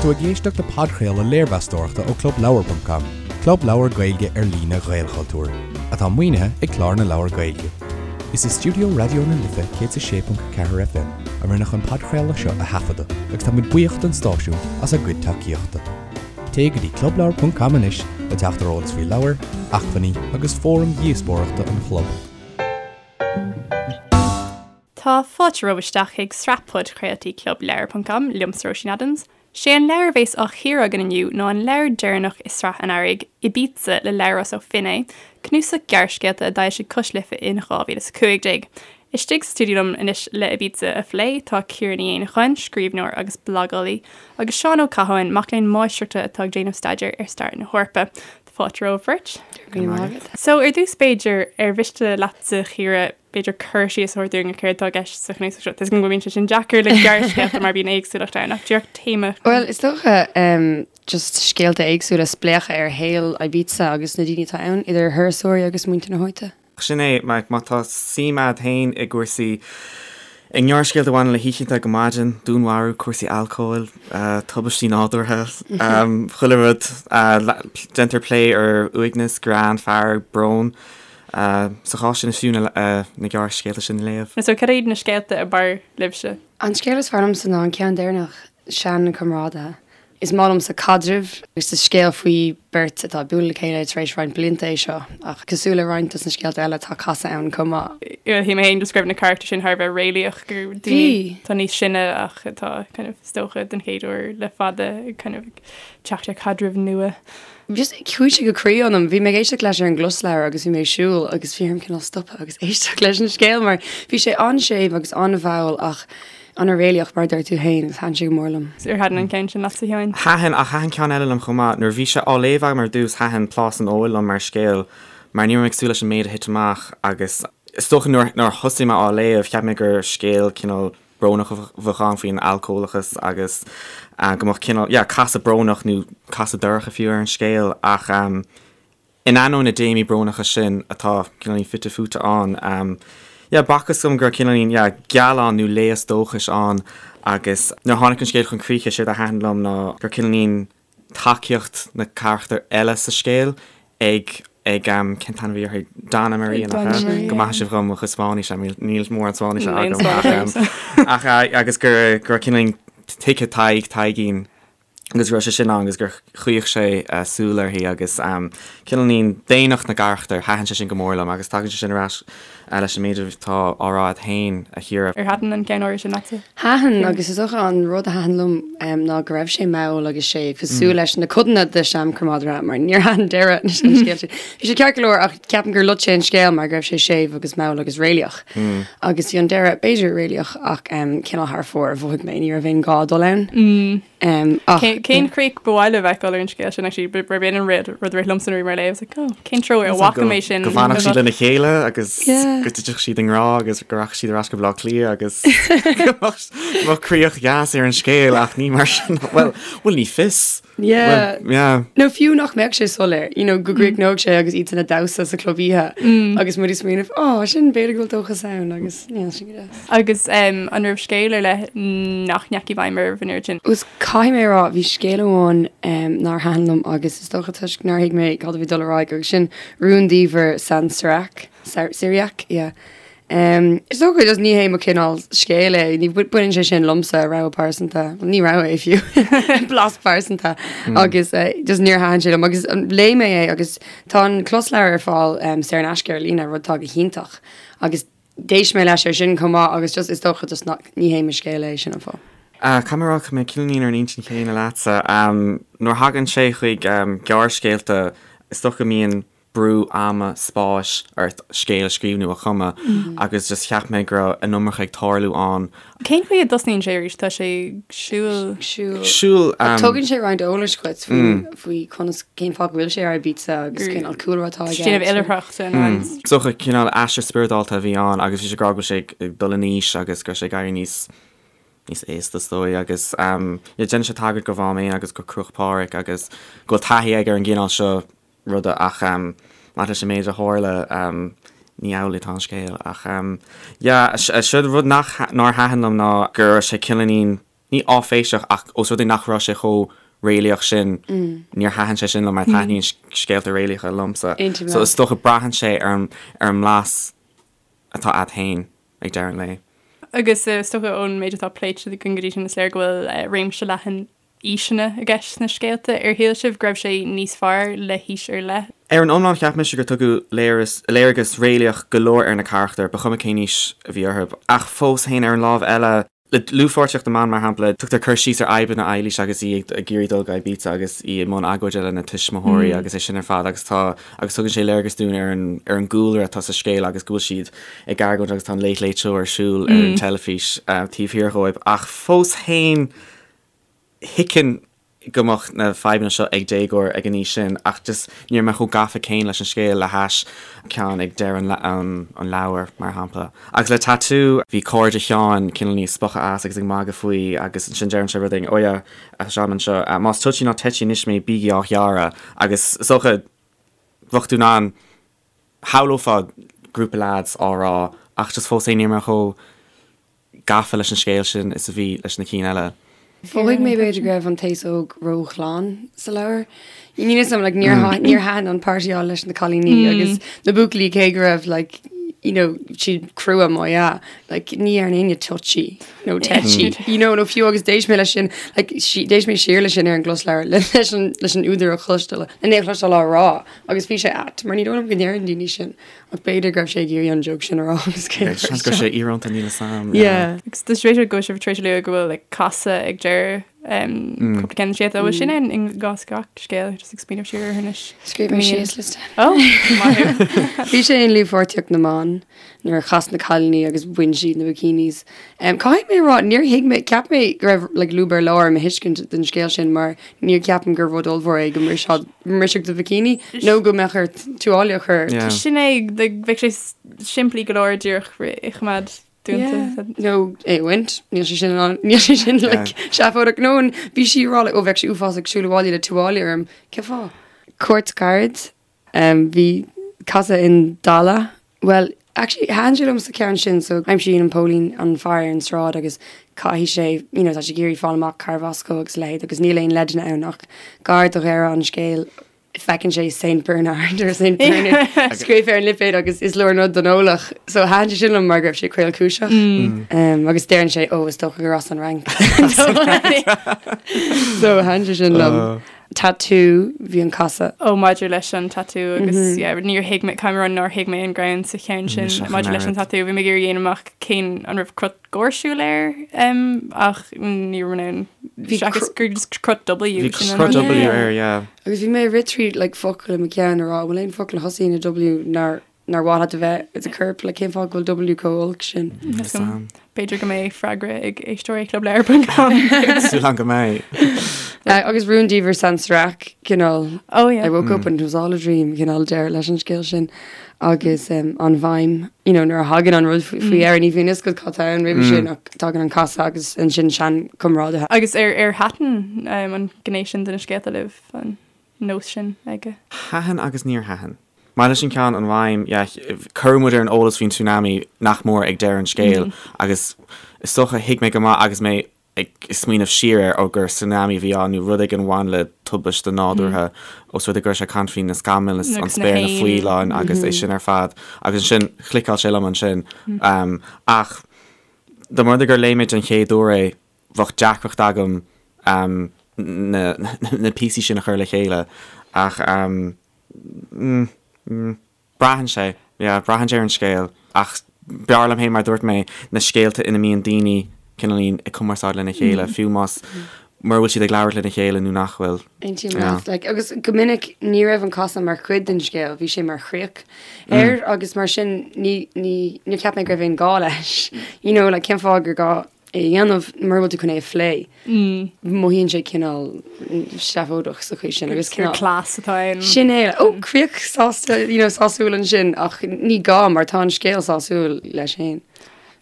tú ag éisteacht le podchraoladh léirmheastóireachta ó ClubLeabhar.com, club leabhar Gaeilge ar líne Ghaelchultúir, atá maoinithe ag Clár na Leabhar Gaeilge. Is i stiúideo Raidió na Life 106.4 FM a rinneadh an podchraoladh seo a thaifeadadh agus tá muid buíoch don stáisiún as a gcuid tacaíochta. Téigh go dtí clubleabhar.com anois le teacht ar eolas faoi leabhair, acmhainní agus fóraim dhíospóireachta an chlub. Tá fáilte romhaibh isteach chuig sraith podchraoltaí Club Leabhar ponc com, liomsa Róisín Adams. Sé an leabhar a bhéas á chíoradh againn inniu ná an leabhar deireanach i sraith an Earraigh, Ibiza le Labhrás Ó Finnéidh, cnuasach gearrscéalta a d'fhoilsigh Cois Life in 2015. Istigh sa stiúideo liom anois le Ibiza a phlé tá Ciara Ní Éanacháin, scríbhneoir agus blagálaí, agus Seán Ó Catháin, mac léinn máistreachta atá ag déanamh staidéir ar stair na hEorpa. Fáilte romhaibh beirt. Go raibh maith agat. So, ar dtús b'fhéidir, ar mhiste leatsa, a Chiara, b'fhéidir cur síos a thabhairt dúinn ar céard atá i gceist sa chnuasach seo. Tá a fhios agam go mbíonn sé sin deacair le gearrscéalta mar bíonn éagsúlacht ann ach díreach téama. Bhuel, is dócha just scéalta éagsúla, spléachadh ar shaol Ibiza agus na daoine atá ann, idir thurasóirí agus muintir na háite. Sin é, má tá suim a'd féin i gcúrsaí, i ngearrscéalta a bhaineann le hoícheanta go maidin, dúnmharú, cúrsaí alcóil, tubaistí nádúrtha, chuile rud, déantar plé ar uaigneas, greann, fearg, brón. Sa chás sin is fiú na gearrscéalta sin a léamh. So cad iad na scéalta ab fhearr libhse? An scéal is fearr liomsa ná an ceann deireanach, Seanchomrádaithe. Is maith liomsa caidrimh agus is scéal faoi beirt atá ag bualadh le chéile tar éis roinnt blianta é seo, ach cosúil le roinnt dos na scéalta eile tá casadh ann chomh maith. Shíl mé féin just go raibh na carachtair sin thar a bheith réalaíoch, gur daoine atá níos sine ach atá kind of is dócha den chéad uair le fada ag kind of teacht ar chaidreamh nua. Just chuaigh sé go croí ionam. Bhí mé ag éisteacht leis ar an gclosleabhar agus bhí mé ag siúl agus bhí orm cineál stopadh agus éisteacht leis an scéal mar bhí sé an-séimh agus an-mhall ach an-réalaíoch mar a dúirt tú féin agus thaitin sé go mór liom. Ar thaitin an ceann sin leatsa, a Sheáin? Thaitin, ach thaitin ceann eile liom chomh maith. Nuair a bhí sé á léamh agam ar dtús thaitin Plás an Óil liom mar scéal mar ní raibh mé ag súil leis an méid a thit amach agus is dócha nuair a thosaigh mé á léamh cheap mé gur scéal cineál brónach a bheadh ann faoin alcólachas agus go mbeadh cineál, yeah, casadh brónach nó casadh dorcha fiú ar an scéal ach in ainneoin na dtéamaí brónacha sin atá cineáilín fite fuaite ann, yeah, b'fhacthas dom go raibh cineáilín, yeah, gealán nó léas dóchais ann agus nuair a tháinig an scéal chun críche, séard a thaitin liom ná gur cineáilín tacaíocht na carachtar eile sa scéal ag ag cén t-ainm a bhí uirthi? Donna Maria nach ea? Maria. Go maithe sibh dhom mo chuid Spáinnise, níl níl mórán Spáinnise agam ach ach agus gur go raibh cineáilín tuigthe Tadhg, Taidhgín agus go raibh sé sin ann agus gur chaoch sé súil uirthi agus cineáilín daonnacht na gcarachtar, thaitin sé sin go mór liom agus tagann sé sin ar ais leis an méid atá á rá agat féin, a Chiara. Ar thaitin an ceann áirithe sin leatsa? Thaitin, agus is dócha an rud a thaitin liom ná go raibh sé mall agus séimh, cosúil leis na codanna de Seanchomrádaithe, mar níor thaitin deireadh an scéil sin. Bhí sé ceart go leor ach ceapaim gur loit sé an scéal mar go raibh sé séimh agus mall agus réalaíoch. Agus bhí an deireadh, b'fhéidir, réalaíoch ach cineál thar fóir, mhothaigh mé, ní raibh aon ghá dul ann. Ach. Cén chríoch ba mhaith libh a fheiceáil ar an scéal sin actually? Ba b'in an rud rud a rith liomsa nuair a bhí mé á léamh. I was like, oh, cén treo ar bhfaca mé sin? Go bhfanfadh siad lena chéile agus go dtitfeadh siad i ngrá agus go rachadh siad ar ais go Baile Átha Cliath agus go mbeadh críoch dheas ar an scéal ach ní mar sin. Bhuel, bhuel ní fios. Yeah. Yeah. Nó fiú nach mbeadh sé soiléir, you know, go gcríochnódh sé agus iad san ag damhsa sa chlub oíche agus muid ag smaoineamh, oh, sin b'fhéidir go bhfuil dóchas ann agus yeah, sin go deas. Agus an raibh scéal ar leith nach ndeachaigh i bhfeidhm oraibh an oiread sin? Is caithfidh mé a rá, bhí scéal amháin nár thaitin liom agus is dócha toisc nár thuig mé cad a bhí ag dul ar aghaidh agus sin Rúndiamhair San Sirach, Syriac, yeah. Is dócha just ní hé mo chineál scéil é, ní baineann sé sin liomsa, rogha pearsanta, bhuel ní rogha é fiú, blas pearsanta agus just níor thaitin sé liom agus léigh mé é agus tá an closleabhar ar fáil saor in aisce ar líne, rud atá go hiontach agus d'éist mé leis ar sin chomh maith agus just is dócha just nach, ní hé mo scéal é, sin an fáth. Caithfidh mé a rá, tá mé cineáilín ar an intinn chéanna leatsa. Nuair a thagann sé chuig gearrscéalta, is dócha go mbíonn brú ama, spáis ort scéal a scríobh nó a chumadh agus just cheap mé go raibh an iomarca ag tarlú ann. Cén chaoi a dtosnaíonn sé arís? Tá sé ag siúl. Siúl. Siúl. Ach tugann sé roinnt eolais dhuit faoi faoi conas cén fáth go bhfuil sé ar Ibiza agus cén cúlra atá aige. Déanamh oilithreachta nó an. Is dócha cineál aistear spioradálta a bhí ann agus bhí sé ag rá go bhfuil sé ag dul in aois agus go raibh sé ag éirí níos níos aosta is dóigh agus yeah déanann sé tagairt do Mhám Éan agus do Cruach Phádraig agus go bhfuil taithí aige ar an gcineál seo ruda ach maidir leis an méid a tharla ní amhlaidh atá an scéal ach yeah sé rud nach nár thaitin liom ná go raibh sé cineáilín. ní áiféiseach ach ós rud é nach raibh sé chomh réalaíoch sin, níor thaitin sé sin liom mar taitníonn scéalta réalaíocha liomsa. So is dócha braitheann sé ar an ar an mblas atá a'd féin ag deireadh an lae. Agus is dócha ón méid atá pléite againn go dtí sin is léir go bhfuil réimse leathan aoiseanna i gceist sna scéalta. Ar shíl sibh go raibh sé níos fearr le haois ar leith? Ar an iomlán cheap mise gur tugadh léargas réalaíoch go leor ar na carachtair, ba chuma cén aois a bhí orthu. Ach fós féin ar an lámh eile, le dlúthpháirtíocht na mban, mar shampla, tugtar cur síos ar fhadhbanna Eilís agus í ag iarraidh dul go Ibiza agus í i mbun agóide lena tuismitheoirí agus é sin ar fad agus tá agus tugann sé léargas dúinn ar an ar an gcúlra atá sa scéal agus go bhfuil siad ag argóint agus tá an Late Late Show ar siúl ar an teilifís taobh thiar dhóibh ach fós féin thuigfinn go mbeadh na fadhbanna seo ag déagóir ag an aois sin ach just ní raibh mé chomh gafa céanna leis an scéal le hais ceann ag deireadh an an leabhair, mar shampla. Agus le Tatú, bhí cairde Sheáin cineál níos spochadh as agus ag magadh faoi agus ansin deireann sé rud éigin, oh yeah, Seán anseo, más touchy ná tetchy anois mé bígí á ghearradh agus is dócha bheadh tú in ann shamhlófá grúpa leaids á rá ach just fós féin ní raibh mé chomh gafa leis an scéal sin is a bhí leis na cinn eile. Mhothaigh mé b'fhéidir go raibh an t-aos óg róghlan sa leabhar. Níl 'fhios a'm, like, níor níor thaitin an páirteáil leis na cailíní agus na buachaillí cé go raibh like, you know, siad crua má ea, like, ní deireann éinne touchy nó tetchy, you know, nó fiú agus d'éist mé leis sin, like, d'éist mé siar leis sin ar an gclosleabhar leis an, leis an údar a chloisteáil, lena é a chloisteáil á rá agus bhí sé ait mar ní dóigh liom go ndeireann daoine sin. Ach b'fhéidir go raibh sé ag iarraidh an joke sin a rá agus cé Yeah, seans go raibh sé íorónta níl 'fhios a'm. Yeah. Agus tá sé go bhfuil sibh tar éis a lua go bhfuil like, casadh ag deireadh um, cúpla ceann de na scéalta. Bhfuil sin ann i gcás gach scéal, just ag smaoineamh siar air anois. Scríobh mé síos liosta. Oh, maith thú. Bhí sé in Dlúthpháirtíocht na mBan nuair a chas na cailíní agus bhain siad na bikinis. Um, caithfidh mé a rá, níor thuig mé, ceap mé go raibh like, lúb ar lár i mo thuiscint den scéal sin mar níor ceapaim gur rud ollmhór é go mbrisfeadh mbrisfeadh do bhikini nó go mbeadh ort tuáille a chur. Yeah. Sin é, like, bheadh sé s- simplí go leor díreach é a choimeád dúnta. Yeah. Nó é a bhaint, níl sé sin in ann- níl sé sin like, seafóideach. Nó an bhí sí ag rá like, ó bheadh sé uafásach siúl abhaile le tuáille orm. Cén fáth? Cuairt ghairid. Bhí casadh in Dala. Bhuel, actually, thaitin sé liom sa cheann sin, so aimsíonn an póilín an fear ar an sráid agus caithfidh sé, you know, tá sé ag iarraidh fáil amach cárbh as dó agus a leithéid agus níl aon leideanna ann ach gar do dheireadh an scéil feiceann sé Saint Bernard or Saint Bernard scríofa ar an lipéad agus is leor an rud don eolach. So thaitin sé sin liom mar go raibh sé caolchúiseach. Um, agus deireann sé, ó, is dócha gur as an Fhrainc. So thaitin sé sin liom. Tatú, bhí an casadh. Ó maidir leis an tatú agus yeah, níor thuig mé, caithfidh mé a rá nár thuig mé an greann sa cheann sin maidir leis an tatú. Bhí mé ag iarraidh a dhéanamh amach cén an raibh crot gáirsiúil air um, ach ní raibh mé in ann seachas gur just crot W. Bhí crot W air, yeah. Agus bhí mé ag rith tríd like, focail i mo cheann a rá, bhfuil aon focal a thosaíonn le W nár nár mhaith leat a bheith i do chorp, like cén fáth go bhfuil W chomh olc sin? B'fhéidir go mbeidh freagra ag éisteoirí Club Leabhar ponc com. Súil agam go mbeidh. Agus Rúndiamhair San Serac, cineál Oh yeah. I woke up and it was all a dream, cineál deireadh leis an scéal sin. Agus um, an mhaidhm, you know, nuair a thagann an rud faoi mm. dheireadh ní bhíonn a fhios agat cad tá ann roimhe sin ach tagann an casadh agus ansin seanchomrádaithe. Agus ar ar thaitin um, an ghné sin de na scéalta libh an nós sin aige? Thaitin agus níor thaitin. Maidir leis an ceann, an mhaidhm, yeah, cuireadh muid ar an eolas faoin tsunami nach mór ag deireadh an scéil agus is dócha thuig mé go maith agus mé ag smaoineamh siar air, ó gur tsunami a bhí ann nó rud éigin a bhain le tubaiste nádúrtha os rud é go raibh sé ag caint faoi na scamaill, an spéir, na faoileáin agus é sin ar fad agus ansin chliceáil sé liom ansin. Ach dá mba rud é gur léigh mé den chéad uair é, bheadh deacracht agam na píosaí sin a chur le chéile ach Braitheann sé, yeah, braitheann sé ar an scéal. Ach b'fhearr liom féin, mar a dúirt mé, na scéalta ina mbíonn daoine cineáilín ag cumarsáid lena chéile, fiú más, mura bhfuil siad ag labhairt lena chéile nó nach bhfuil. Aontaím leat. Like, agus go minic ní raibh an casadh mar chuid den scéal, bhí sé mar chríoch air agus mar sin ní, ní, níor cheap mé go raibh aon gá leis. You know, like, cén fáth gur gá é a dhéanamh mura bhfuil tú chun é a phlé. Mothaíonn sé cineál seafóideach sa chaoi sin agus cineál. Cleas atá ann. Sin é, ó críoch sásta, you know, sásúil ansin ach ní gá mar tá an scéal sásúil leis féin.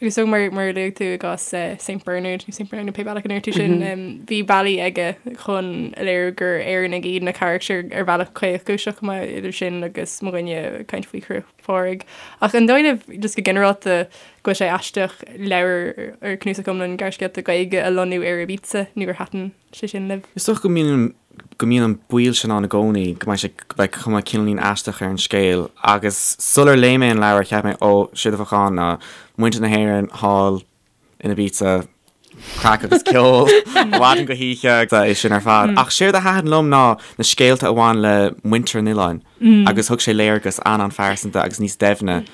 Agus so mar mar a luaigh tú i gcás Saint Bernard nó Saint Bernard pé bealach a ndeir tú sin, bhí bealaí aige chun a léiriú gur Éireannaigh iad na carachtair ar bhealach caolchúiseach chomh maith idir sin agus mo dhuine ag caint faoi Chruach Phádraig. Ach an dóigh libh just go ginearálta. go bhfuil sé aisteach leabhar ar cnuasach iomlán gearrscéalta Gaeilge a lonnú ar Ibiza nó ar thaitin sé sin libh? Is dócha go mbíonn go mbíonn an baol sin ann i gcónaí go mbeidh sé go mbeidh cuma cineáilín aisteach ar an scéal agus sular léigh mé an leabhar cheap mé ó séard a bheadh ann ná muintir na hÉireann thall in Ibiza, craic agus ceol ó mhaidin go hoíche agus é sin ar fad. Ach séard a thaitin liom ná na scéalta a bhain le muintir an oileáin agus thug sé léargas an-an-phearsanta agus níos doimhne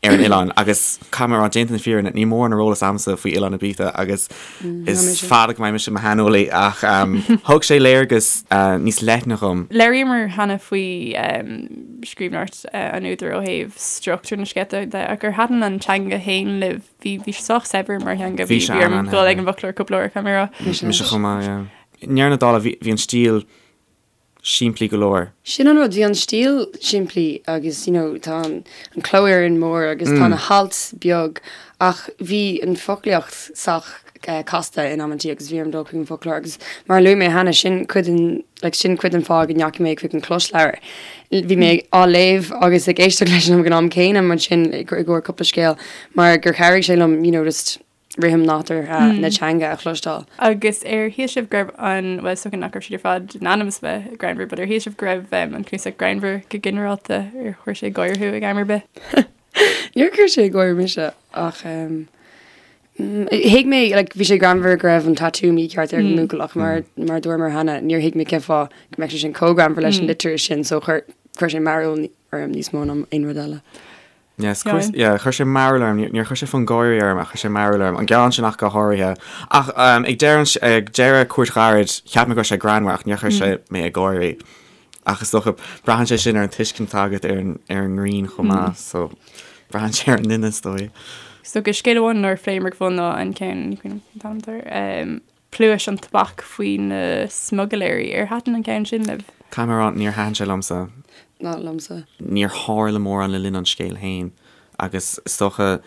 ar an oileán agus caithfidh mé a rá, déanta na fírinne, níl mórán ar eolas agamsa faoi oileán Ibiza agus is fada go mbeidh mise i mo shaineolaí ach thug sé léargas níos leithne dhom. Labhraíomar cheana faoi scríbhneoireacht an údair ó thaobh struchtúr na scéalta de ach ar thaitin an teanga féin libh? Bhí bhí sé sách saibhir mar theanga, bhí bhí orm dul ag an bhfoclóir cúpla uair, caithfidh mé a rá. Mise chomh maith, yeah. I ndeireadh na dála bhí bhí an stíl simplí go leor. Sin an rud, bhí an stíl simplí agus you know tá an an cló Éireann mór agus tá na hailt beag ach bhí an foclaíocht sách casta in amantaí agus bhí orm dul chuig an bhfoclóir agus mar a luaigh mé cheana sin cuid den like sin cuid den fáth go ndeachaigh mé chuig an closleabhar. Bhí mé á léamh agus ag éisteacht leis ag an am céanna mar sin i gcomhair cúpla scéal mar gur chabhraigh sé liom you know just rithim nádúrtha na teanga a chloisteáil. Agus ar shíl sibh go raibh an, bhuel is dócha nach raibh siad ar fad in ainm is a bheith greannmhar, but ar shíl sibh go raibh an cnuasach greannmhar go ginearálta, ar chuir sé gáire thú ag am ar bith? Níor chuir sé gáire mise ach thuig mé like bhí sé greannmhar go raibh an tatú mícheart ar an mbuachaill ach mar mar a dúramar cheana níor thuig mé cén fáth go mbeadh sé sin chomh greannmhar leis an litir sin so chuir chuir sé mearbhall orm níos mó ná aon rud eile. Yes, chuir yeah, chuir sé mearbhall orm, níor chuir sé fonn gáire orm ach chuir sé mearbhall orm, an gearán sin ach go háirithe. Ach ag deireadh ag deireadh Cuairt Ghairid cheap mé go raibh sé greannmhar ach níor chuir sé mé ag gáirí. Ach is dócha, braitheann sé sin ar an tuiscint atá agat ar an ar an ngreann chomh maith, so braitheann sé ar an nduine is dóigh. So go scéal amháin nár phléamar go fóill ná an ceann, ní cuimhin liom cén t-ainm atá air, um, Pluais an Tobac faoi na smugairléirí. Ar thaitin an ceann sin libh? Caithfidh mé a rá, níor thaitin sé liomsa. Ná liomsa. Níor tharla mórán le linn an scéil féin agus is dócha,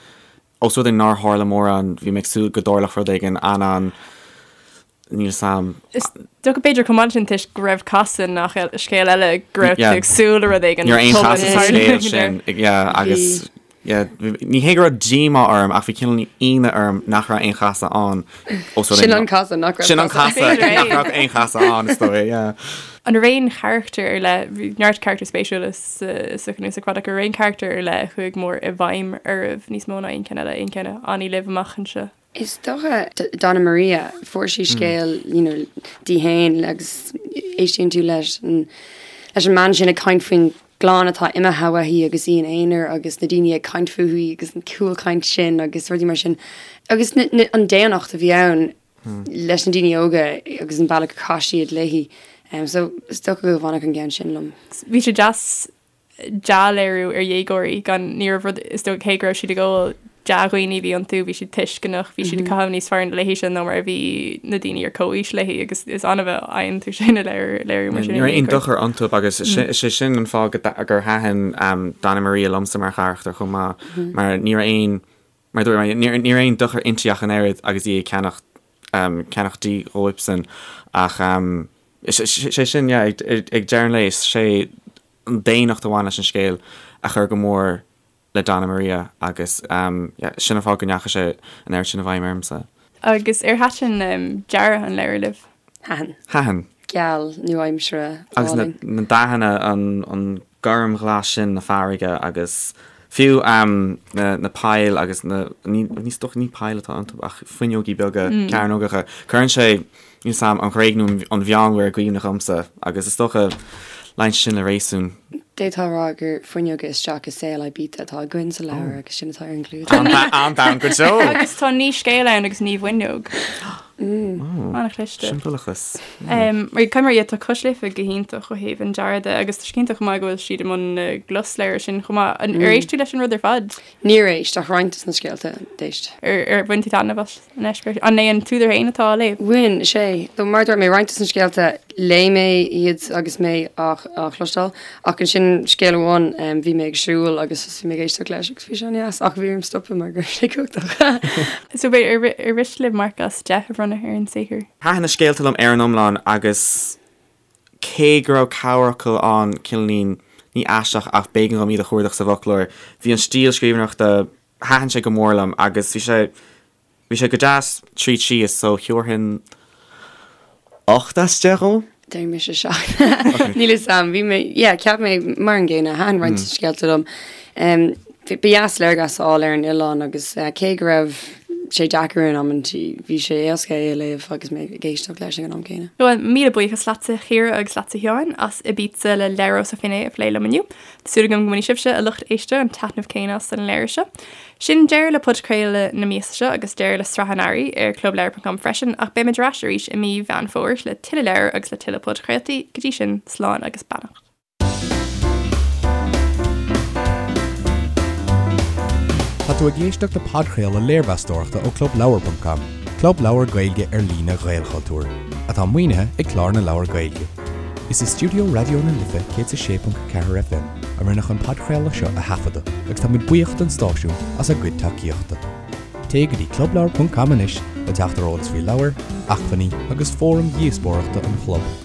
ós rud é nár tharla mórán, bhí mé ag súil go dtarlódh rud éigin an-an Níl 'fhios a'm. Is dócha b'fhéidir chomh maith sin toisc go raibh casadh i ngach scéal eile go raibh tú ag súil le rud éigin. Ní raibh aon chasadh sa scéal sin yeah agus yeah ní hé go raibh díomá orm ach bhí cineál ionadh orm nach raibh aon chasadh ann. Sin an casadh nach raibh Sin an casadh nach raibh aon chasadh ann is dóigh yeah. An raibh aon charachtar ar leith, bhí neart carachtar spéisiúla sa chnuasach fad ach an raibh aon charachtar ar leith a chuaigh mór i bhfeidhm oraibh níos mó ná aon cheann eile, aon cheann a fhanfaidh libh amach anseo? Is dócha Donna Maria, fuair sí scéal you know di féin agus éistíonn tú leis an leis an mbean sin ag caint faoin gclann atá imithe uaithi agus í ina aonar agus na daoine ag caint fúithi agus an cúlchaint sin agus rudaí mar sin. Agus na, na, an daonnacht a bhí ann leis na daoine óga agus an bealach a chaith siad léi. Um, so is dócha go bhfanfadh an ceann sin liom. Bhí sé deas dea-léiriú ar dhéagóirí gan, ní raibh rud, is dócha cé go raibh siad ag ól, dea-dhaoine a bhí iontu, bhí siad tuisceanach, bhí siad ag caitheamh níos fearr léi sin ná mar a bhí na daoine ar comhaois léi agus is annamh a fhaigheann tú sin i léiriú mar sin. Ní raibh aon dochar iontu agus is é sin an fáth gur thaitin Donna Maria liomsa mar charachtar chomh maith mar ní raibh aon, mar a dúirt mé, ní raibh aon dochar inti ach an oiread agus í ag ceannach ceannach dí dhóibhsean ach sé sin, yeah, ag deireadh an lae is sé an daonnacht a bhain leis an scéal a chuir go mór le Donna Maria agus yeah, sin an fáth go ndeachaigh sé an oiread sin i bhfeidhm ormsa. Agus ar thaitin dearadh an leabhair libh? Thaitin. Thaitin. Geal, nua-aimseartha, Agus na, álainn. na dathanna, an, an gormghlas sin na farraige agus fiú na, na poill agus na, ní, ní, is dócha ní poill atá iontu ach fuinneogaí beaga cearnógacha, cuireann sé Níl 'fhios a'm, an Ghréig nó an Mheánmhuir i gcuimhne dhomsa, agus is dócha, luíonn sé sin le réasún. D'fhéadfá a rá gur fuinneoga isteach i saol Ibiza atá againn sa leabhar agus sin atá ar an gclúdach. An-domhain go deo! Agus tá naoi scéal ann agus naoi bhfuinneog. An-chliste. Siombalachas. Mar caithfidh mé a rá, tá Cois Life go hiontach ó thaobh an dearaidh de agus tá sé iontach chomh maith go bhfuil siad i mbun na gclosleabhar sin chomh maith. Ar éist tú leis an rud ar fad? Níor éist, ach roinnt de na scéalta, d'éist. Ar bhain tú taitneamh as an eispéireas? An é an t-údar féin atá á léamh? Bhain, is ea. So mar a dúirt mé, roinnt de na scéalta, léigh mé iad agus mé á chloisteáil, ach ansin scéal amháin, bhí mé ag siúl agus bhí mé ag éisteacht leis agus bhí sé an-deas, ach bhí orm stopadh mar go raibh sé cumhachtach. So b'fhéidir, ar mhiste libh marc as 10 a bhronnadh ar an saothar? Thaitin na scéalta liom ar an iomlán agus Cé go raibh corrfhocal ann, cineáilín, ní aisteach ach b'éigean dhom iad a chuardach sa bhfoclóir, bhí an stíl scríbhneoireachta Thaitin sé go mór liom agus bhí sé bhí sé go deas tríd síos so thabharfainn 8 as 10 dhó. Déarfaidh mise 7. Níl fhios a'm, bhí mé, yeah, cheap mé mar an gcéanna, thaitin roinnt scéalta liom. Ba dheas léargas a fháil ar an oileán agus cé go raibh sé deacair in amantaí, bhí sé éasca é a léamh agus mé ag éisteacht leis ag an am céanna. Bhuel, míle buíochas leatsa a Chiara agus leatsa a Sheáin as Ibiza le Labhrás Ó Finnéidh a phlé liom inniu. Tá súil agam go mbainfidh sibhse, a lucht éisteachta, an taitneamh céanna as an leabhar seo. Sin deireadh le podchraoladh na míosa seo agus deireadh le sraith an Earraigh ar clubleabhar.com freisin ach beimid ar ais arís i mí Mheán Fómhair le tuilleadh leabhar agus le tuilleadh podchraoltaí. Go dtí sin, slán agus beannacht. Tá tú ag éisteacht le podchraoladh léirmheastóireachta ó clubleabhar.com, club leabhar Gaeilge ar líne Ghaelchultúir, atá maoinithe ag Clár na Leabhar Gaeilge. Is i stiúideo Raidió na Life 106.4 FM a rinneadh an podchraoladh seo a thaifeadadh agus táimid buíoch don stáisiún as a gcuid tacaíochta. Téigh go dtí clubleabhar.com anois le teacht ar eolas faoi leabhair, acmhainní agus fóraim dhíospóireachta an chlub.